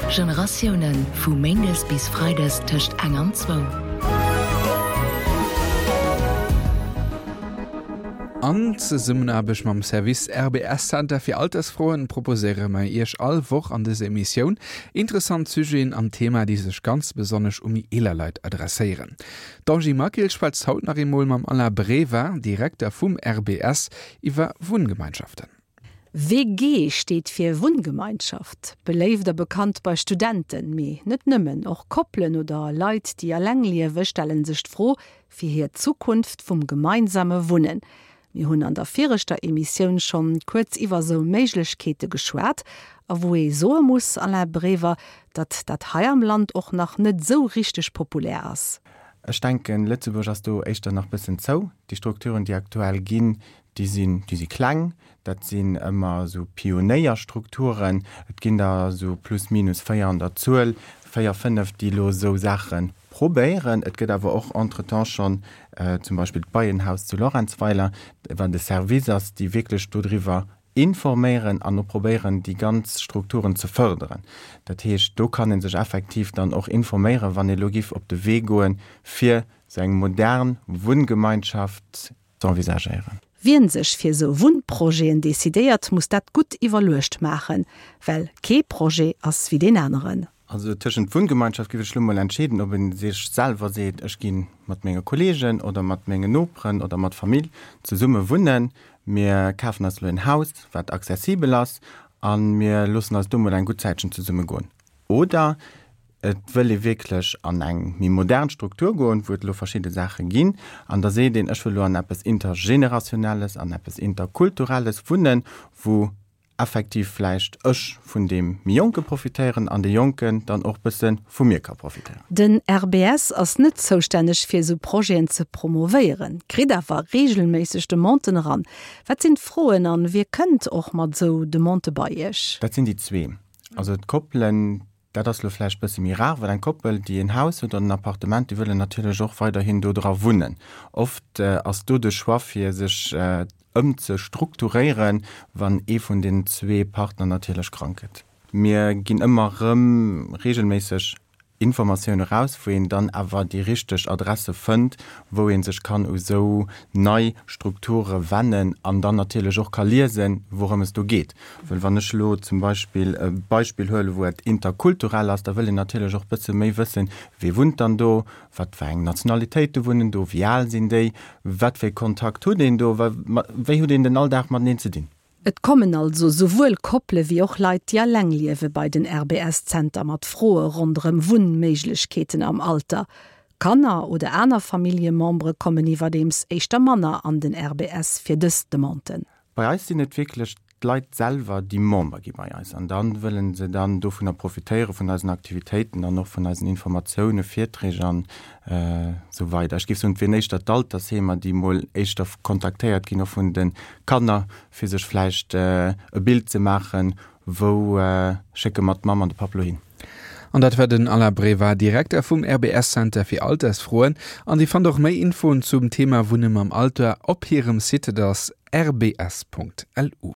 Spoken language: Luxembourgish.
Generatiounen, vu méindes bis freides tëscht eng an zwou. An Zesummenaarbecht mam Service RBS Center fir Altersfroen proposéiere mer Iech all Woch an dëser Emissioun interessant Sujeten an Thema, déi sech ganz besonnesch u méi eeler Leit adresséieren. D'Angie Maquil schwätzt haut nach eemol mam Alain Breva, Direkter vum RBS, iwwer Wunngemeinschaften. WG steet fir Wunngemeinschaft. Beléift a bekannt bei Studenten, mee net nëmmen, och Koppelen oder Leit, déi eleng liewe stelle sech d'Fro fir hir Zukunft vum gemeinsame Wunnen. Mir hunn an der viregter Emissioun schonn kuerz iwwer sou Méiglechkeete geschwat a wou ee soe muss, Alain Brever, datt dat hei am Land och nach net sou richteg populär ass. Ech denken, Lëtzebuerg ass do éischter nach bëssen zou. Déi Strukturen, déi aktuell ginn, déi sinn, déi si kleng. Dat sinn ëmmer esou Pionéierstrukturen. Et ginn der esou plus minus 4 an der Zuel, 4, 5, déi elo esou Saache probéieren. Et gëtt awer och entretemps schonn zum Beispill d'Beienhaus zu Lorentzweiler, wat e Service ass, déi wierklech dodriwwer informéieren an och probéieren, déi ganz Strukturen ze fërderen. Dat heescht, do kann ee sech effektiv dann och informéieren, wann ee elo giff op de Wee goen, fir esou eng modern Wunngemeinschaft z'envisagéieren. Wien sech fir esou Wunnprojeten decidéiert, muss dat gutt iwwerluecht maachen, well kee Projet ass wéi deen aneren. Also tëschent Wunngemeinschaft géif ech lo mol entscheeden, ob ee sech selwer seet, ech gi mat menge Kollegen oder mat mengen Noperen oder mat Famill zesumme wunnen, mir kafen eis elo en Haus, wat accessibel ass a mir loossen eis do mol eng gutt Zäitchen zesumme goen. Oder et wëll ee wierklech an eng méi modern Struktur goen, wou et elo verschidde Saache ginn, an da seet een, ech wëll elo an eppes Intergenerationelles, an eppes Interkulturelles wunnen, wou effektiv vläicht ech vun deem méi Jonke profitéieren an dee Jonken dann och bësse vu mir ka profitéieren. Den RBS ass net zoustänneg fir esou Projeten ze promovéieren, kritt awer reegelméisseg Demanden eran. Wat sinn d'Froen an wie kënnt och mat esou Demandë bei Iech? Dat sinn déi zwee. Also d'Koppelen, dat ass elo vläicht bësse méi rar, well eng Koppel, déi en Haus huet oder en Appartement, déi wëllen natierlech och weiderhin do dra wunnen. Oft ass do de Choix, fir sech ëmzestrukturéieren, wann ee vun den zwee Partner natierlech krank gëtt. Mir ginn ëmmer erëm reegelméisseg Informatioun eraus, wou een dann awer déi richteg Adresse fënnt, wou ee sech kann u sou nei Strukture wennen an dann natierlech och ka liesen, wourëm es do geet. Well wann ech elo zum Beispill e Beispill huelen, wou et interkulturell ass, da wëll een natierlech och bësse méi wëssen, Wie wunnt dann do, wat fir eng Nationalitéite wunnen do, wéi al sinn déi, wat fir e Kontakt huet een do, wéi huet een den Alldag mateneen ze dinn. Et kommen also souwuel Koppele wéi och Leit, déi alleng liewe bei den RBS-Zenter mat Froe ronderëm Wunnméiglechkeeten am Alter. Kanner oder aner Familljemembere kommen iwwerdeems éischter manner an den RBS fir dës Demanden. Bei eis sinn et wierklech d'Leit selwer, déi Member gi bei eis an da wëlle se dann dovunner profitéiere vun eisen Aktivitéiten an och vun eisen Informatiounen, Virträg an esou weider. Ech géif soen, et wieren éischter d'Altersheemer, déi mol éischter kontaktéiert ginn, och vun de Kanner, fir sech vläicht e Bild ze maachen, wou schécke mer d'Mamm an de Papp lo hin. An dat war den Alain Breva, Direkter vum RBS Center fir Altersfroen. An Dir fannt och méi Infoen zum Thema Wunne mam Alter op hirem Site, dat ass rbs.lu.